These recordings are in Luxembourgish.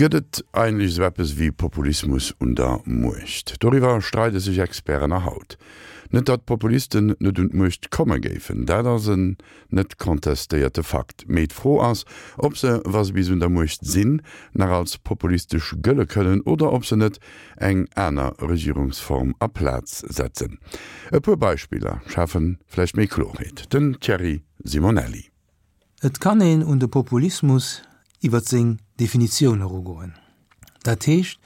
Gëtt et eigentlech esou eppes wéi Populismus un der Muecht? Doriwwer streide sech Experten nach haut. Net datt Populisten net un d'Muecht komme géifen, dat ass en net contestéierte Fakt. Mee d'Fro ass, ob se, wa se bis un der Muecht sinn, nach als populistesch gëlle kënnen oder ob se net eng aner Regierungsform a Plaz setzen. E puer Beispiller schafe vläicht méi Klorheet. Den Thierry Simonelli. Et kann een un de Populismus iwwer seng Definitioun erugoen, dat heescht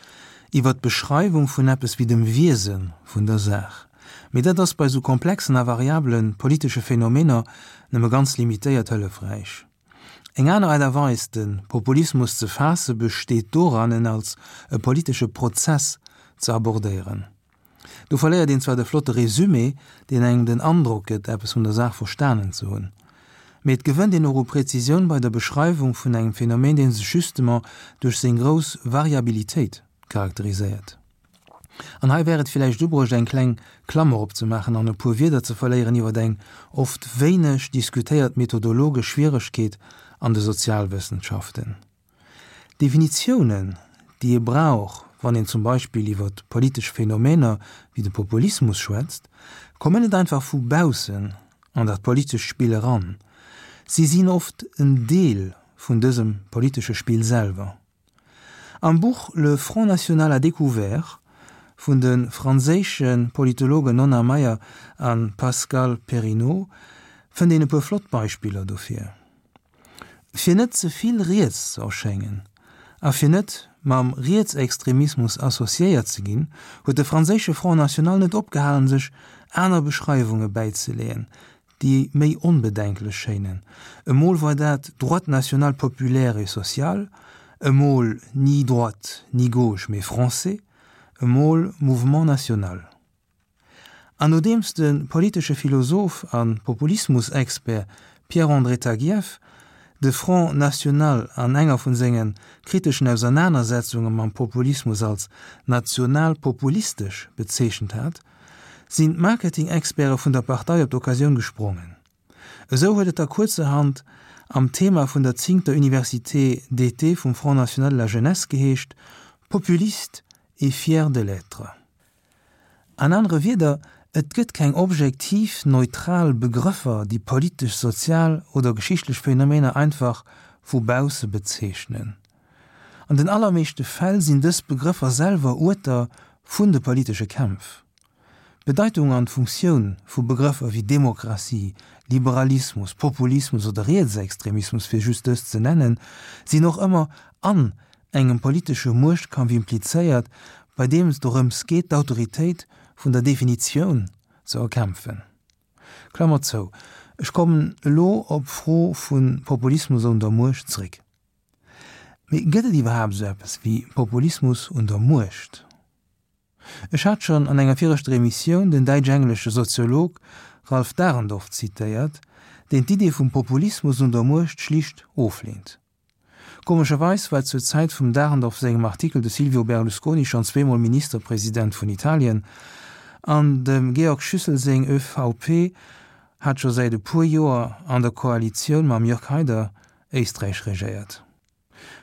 iwwer d'Beschreiwung vun eppes wéi dem Wiese vun der Saach. Mee dat ass bei sou komplexen a variabele politesche Phänomener nëmme ganz limitéiert hëllefräich. Eng aner Aart a Weis de Populismus ze faasse besteet doran en als e politesche Prozess ze abordéieren. Do verléiert een zwar de flotte Resumé, deen engem den Androck gëtt, eppes vun der Saach verstanen ze hunn, mee et gewënnt een och u Präzisioun bei der Beschreiwung vun engem Phänomen, dee sech justement duerch seng grouss Variabilitéit charakteriséiert. An hei wär et villäicht ubruecht, eng kleng Klammer opzemaachen an e puer Wierder ze verléieren iwwer eng oft wéineg diskutéiert methodologesch Schwieregkeet an de Sozialwëssenschaften. D'Definitiounen, déi ee brauch, wann een zum Beispill iwwer politesch Phänomener wéi de Populismus schwätzt, kommen net einfach vu baussen an dat politescht Spill eran. Si sinn oft en Deel vun dësem politesche Spill selwer. Am Buch Le Front national à découvert vun de franséische Politologen Nonna Mayer a Pascal Perrineau fënnt een e puer flott Beispiller dofir. Fir net ze vill riets ze erschéngen a fir net mam Rietsextremismus associéiert ze ginn, huet de franséische Front National net opgehalen, sech aner Beschreiwunge bäizeleeën, déi méi onbedenklech schéinen. Emol war dat Droite nationale populaire et sociale, emol ni droite ni gauche mais français, emol Mouvement national. An nodeems de politesche Philosoph a Populismus-Expert Pierre-André Taguieff de Front National an enger vun senge kriteschen Ausernanersetzunge mam Populismus als national-populistesch bezeechent hat, sinn d'Marketing-Experte vun der Partei op d'Occasioun gesprongen. Esou huet et da kuerzerhand am Thema vun der zéngter Université d'été vum Front National de la Jeunesse geheescht, Populiste et fier de l'être. An anere Wierder, et gëtt keng objektiv, neutral Begrëffer, déi politesch, sozial oder geschichtlech Phänomener einfach vu bausse bezeechnen. An den allermeeschte Fäll sinn dës Begrëffer selwer Uerter vun de politesche Kämpf. D'Bedeitung an d'Funktioun vu Begrëffer wéi Demokratie, Liberalismus, Populismus oder Rietsextremismus, fir just dës ze nennen, sinn och ëmmer an engem politesche Muechtkampf implizéiert, bei deem et dorëms geet, d'Autoritéit vun der Definitioun ze erkämpfen. Klammer zou. Ech kommen elo op d'Fro vu Populismus un der Muecht zréck. Mee gëtt et iwwerhaapt esou eppes wéi Populismus un der Muecht? Ech hat schonn an enger viregter Emissioun den däitsch-englesche Soziolog Ralf Dahrendorf zitéiert, deen d'Idee vum Populismus un der Muecht schlicht ofleent. Komescherweis war zur Zäit vum Dahrendorf sengem Artikel de Silvio Berlusconi schonn zweemol Ministerpresident vun Italien an dem Georg Schüssel seng ÖVP hat scho säit e puer Joer an der Koalitioun mam Jörg Haider Éisträich regéiert.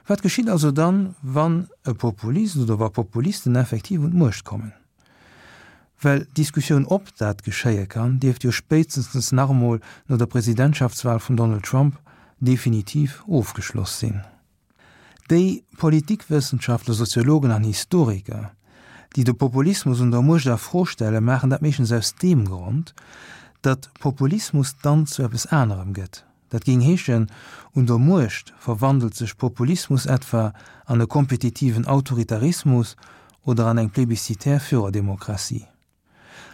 Wat geschitt also dann, wann e Populist oder wa Populisten effektiv un d'Muecht kommen? Well d'Diskussioun ob dat geschéie kann, dierft jo spéitstens nach emol no der Presidentschaftswahl vum Donald Trump definitiv ofgeschloss sinn. Déi Politikwëssenschaftler, Soziologen an Historiker, déi de Populismus un der Muecht a Fro stellen, maachen dat meeschtens aus deem Grond, datt Populismus dann zu eppes anerem gëtt. Dat géing heeschen, un der Muecht verwandelt sech Populismus etwa an e kompetitiven Autoritarismus oder an eng plebiscitär Führerdemokratie.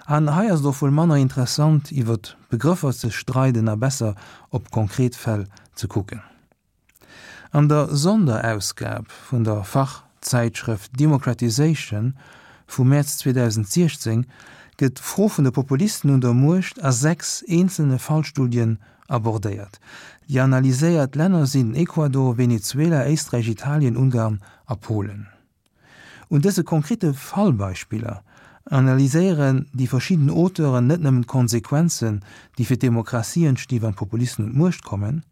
An hei ass et och wuel manner interessant iwwer Begrëffer ze streiden a besser op konkret Fäll ze kucken. An der Sonderausgab vun der Fachzäitschrëft Democratization vum Mäerz 2016 gëtt d'Fro vun de Populisten un der Muecht a 6 eenzelne Fallstudien abordéiert. Déi analyséiert Länner sinn Ecuador, Venezuela, Éisträich, Italien, Ungarn a Polen. Un dëse konkrete Fallbeispiller analyséieren déi verschidden Auteuren net nëmmen d'Konsequenzen, déi fir d'Demokratie entsti wann d'Populisten un d'Muecht kommen.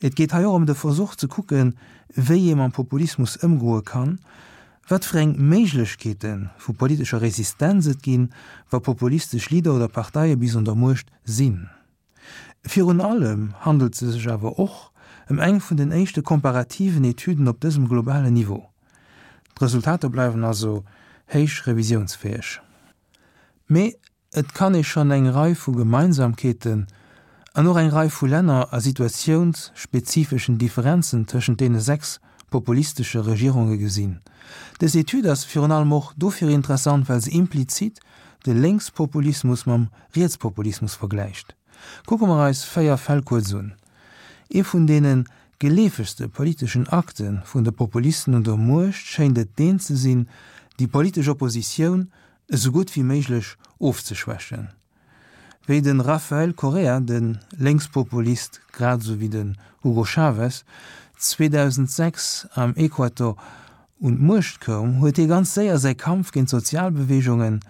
Et geet hei och ëm de Versuch ze kucken, wéi ee mam Populismus ëmgoe kann, wat fir eng Méiglechkeete vu politescher Resistenz et ginn, wa populistesch Leader oder Parteie bis un der Muecht sinn. Virun allem handelt se sech awer och ëm eng vun den éischte komparativen Etüden op dësem globalen Niveau. D'Resultater bleiwen also héich revisiounsfäeg. Mee et kann ee schonn eng Rei vu Gemeinsamkeeten an och eng Rei vu länner a situatiounsspezifeschen Differenzen tëschent deene 6 populistesche Regierunge gesinn. Dës Etüd ass virun allem och dofir interessant, well se implizit de Lénkspopulismus mam Rietspopulismus vergläicht. Kucke mer eis 4 Fäll kuerz un. Ee vun deene geleefegste politeschen Akte vun de Populisten un der Muecht schéint et deen ze sinn, déi politesch Oppositioun esou gutt wéi méiglech ofzeschwächen. Wéi de Rafael Correa, de Lénkspopulist grad esou wéi den Hugo Chavez, 2006 am Equator un d'Muecht koum, huet hie ganz séier säi Kampf géint d'Sozialbeweegungen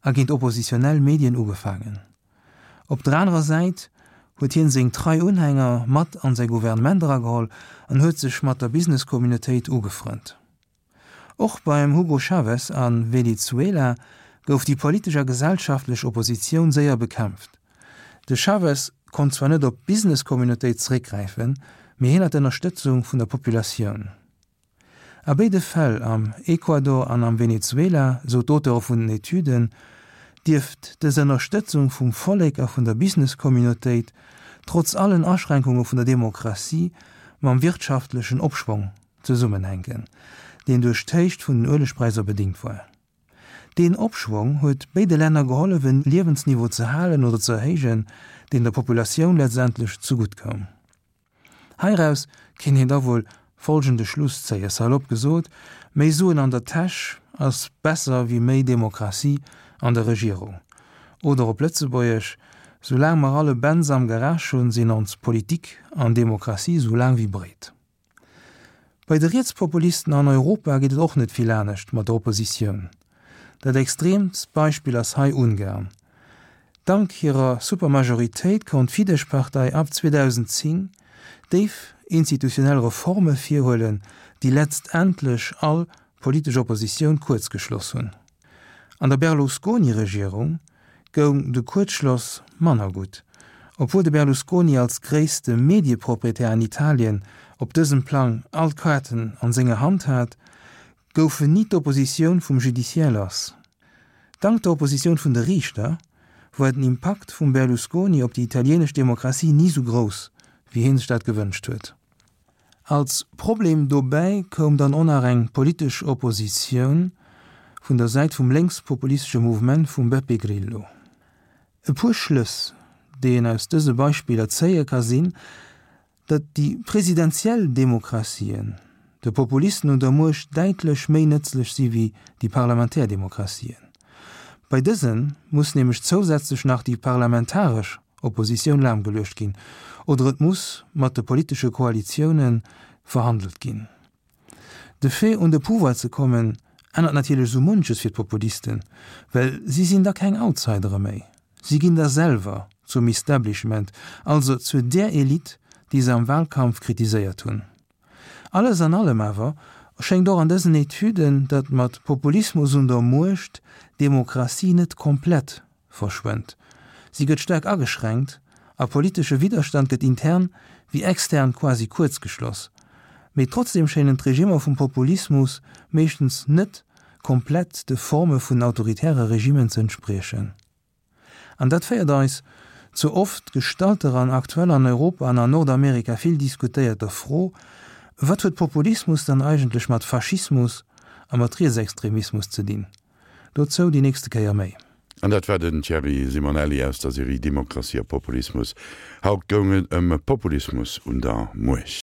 a géint oppositionell Medien ugefaangen. Op der anerer Säit huet hien seng trei Unhänger mat an säi Gouvernement erageholl an huet sech mat der Business-Communautéit ugefrënnt. Och beim Hugo Chavez a Venezuela gouf déi politesch a gesellschaftlech Oppositioun séier bekämpft. De Chavez konnt zwar net op d'Business-Communautéit zeréckgräifen, mee hien hat d'Ënnerstëtzung vun der Populatioun. A béide Fäll, am Ecuador an am Venezuela, sou d'Auteure vun den Etüden, dierft dës Ënnerstëtzung vum Vollek a vun der Business-Communautéit, trotz allen Aschränkunge vun der Demokratie, mam wirtschaftlechen Opschwong zesummenhänken, deen duerch d'Héicht vun den Uelegpräisser bedingt war. Deen Opschwong huet béide Länner gehollef en Liewensniveau ze halen oder ze erhéijen, deen der Populatioun letztendlech zegutt koum. Heiraus kéint een da wuel folgende Schluss zéien, salopp gesot, méi Suen an der Täsch ass besser wéi méi Demokratie an der Regierung. Oder op Lëtzebuergesch, Soulaang mer all e Benz am Garage hunn, sinn ons Politik an Demokratie sou laang wéi breet. Bei de Rietspopulisten an Europa geet et och net vill anescht mat der Oppositioun. Dat extreemst Beispill ass hei Ungarn. Dank hirer Supermajoritéit konnt d'Fidesz-Partei ab 2010 déif institutionell Reforme virhuelen, déi letztendlech all politesch Oppositioun kuerzgeschloss hunn. An der Berlusconi-Regierung goung de Kuerzschloss manner gutt. Obwuel de Berlusconi als gréisste Medieproprietär an Italien op dësem Plang all d'Kaarten an senger Hand hat, goufen ni d'Oppositioun vum Judiciaire lass. Dank der Oppositioun vun de Riichter war den Impakt vum Berlusconi op déi italienesch Demokratie ni sou grouss, wéi hie sech dat gewënscht huet. Als Problem dobäi koum dann och nach eng politesch Oppositioun vun der Säit vum lénkspopulistesche Mouvement vum Beppe Grillo. E puer Schlëss, déi een aus dëse Beispiller zéie ka sinn, datt déi presidentiell Demokratien de Populisten un der Muecht däitlech méi nëtzlech si wéi déi parlamentär Demokratien. Bei dëse muss nämlech zousätzlech nach déi parlamentaresch Oppositioun lahmgeluecht ginn oder et muss mat de politesche Koalitioune verhandelt ginn. De Fait un de Pouvoir ze kommen ännert natierlech esou munches fir d'Populisten, well si sinn da keng Outsidere méi, si ginn da selwer zum Establishment, also zu där Elite, déi se am Wahlkampf kritiséiert hunn. Alles an allem awer schéngt och an dësen Etüden, datt mat Populismus un der Muecht d'Demokratie net komplett verschwënnt. Si gëtt staark ageschränkt a politesche Widderstand gëtt intern wéi extern quasi kuerzgeschloss. Mee trotzdeem schéinen d'Regimmer vum Populismus meeschtens net komplett de Forme vun autoritäre Regimmen ze entspriechen. An dat féiert eis zur oft gestallter an aktuell an Europa an an Nordamerika vill diskutéierter Fro, Wat huet Populismus dann eigentlech mat Faschismus a mat Rietsextremismus ze dinn? Dozou déi nächste Kéier méi. An dat war den Thierry Simonelli aus der Serie Demokratie a Populismus. Haut goung et ëm Populismus un der Muecht.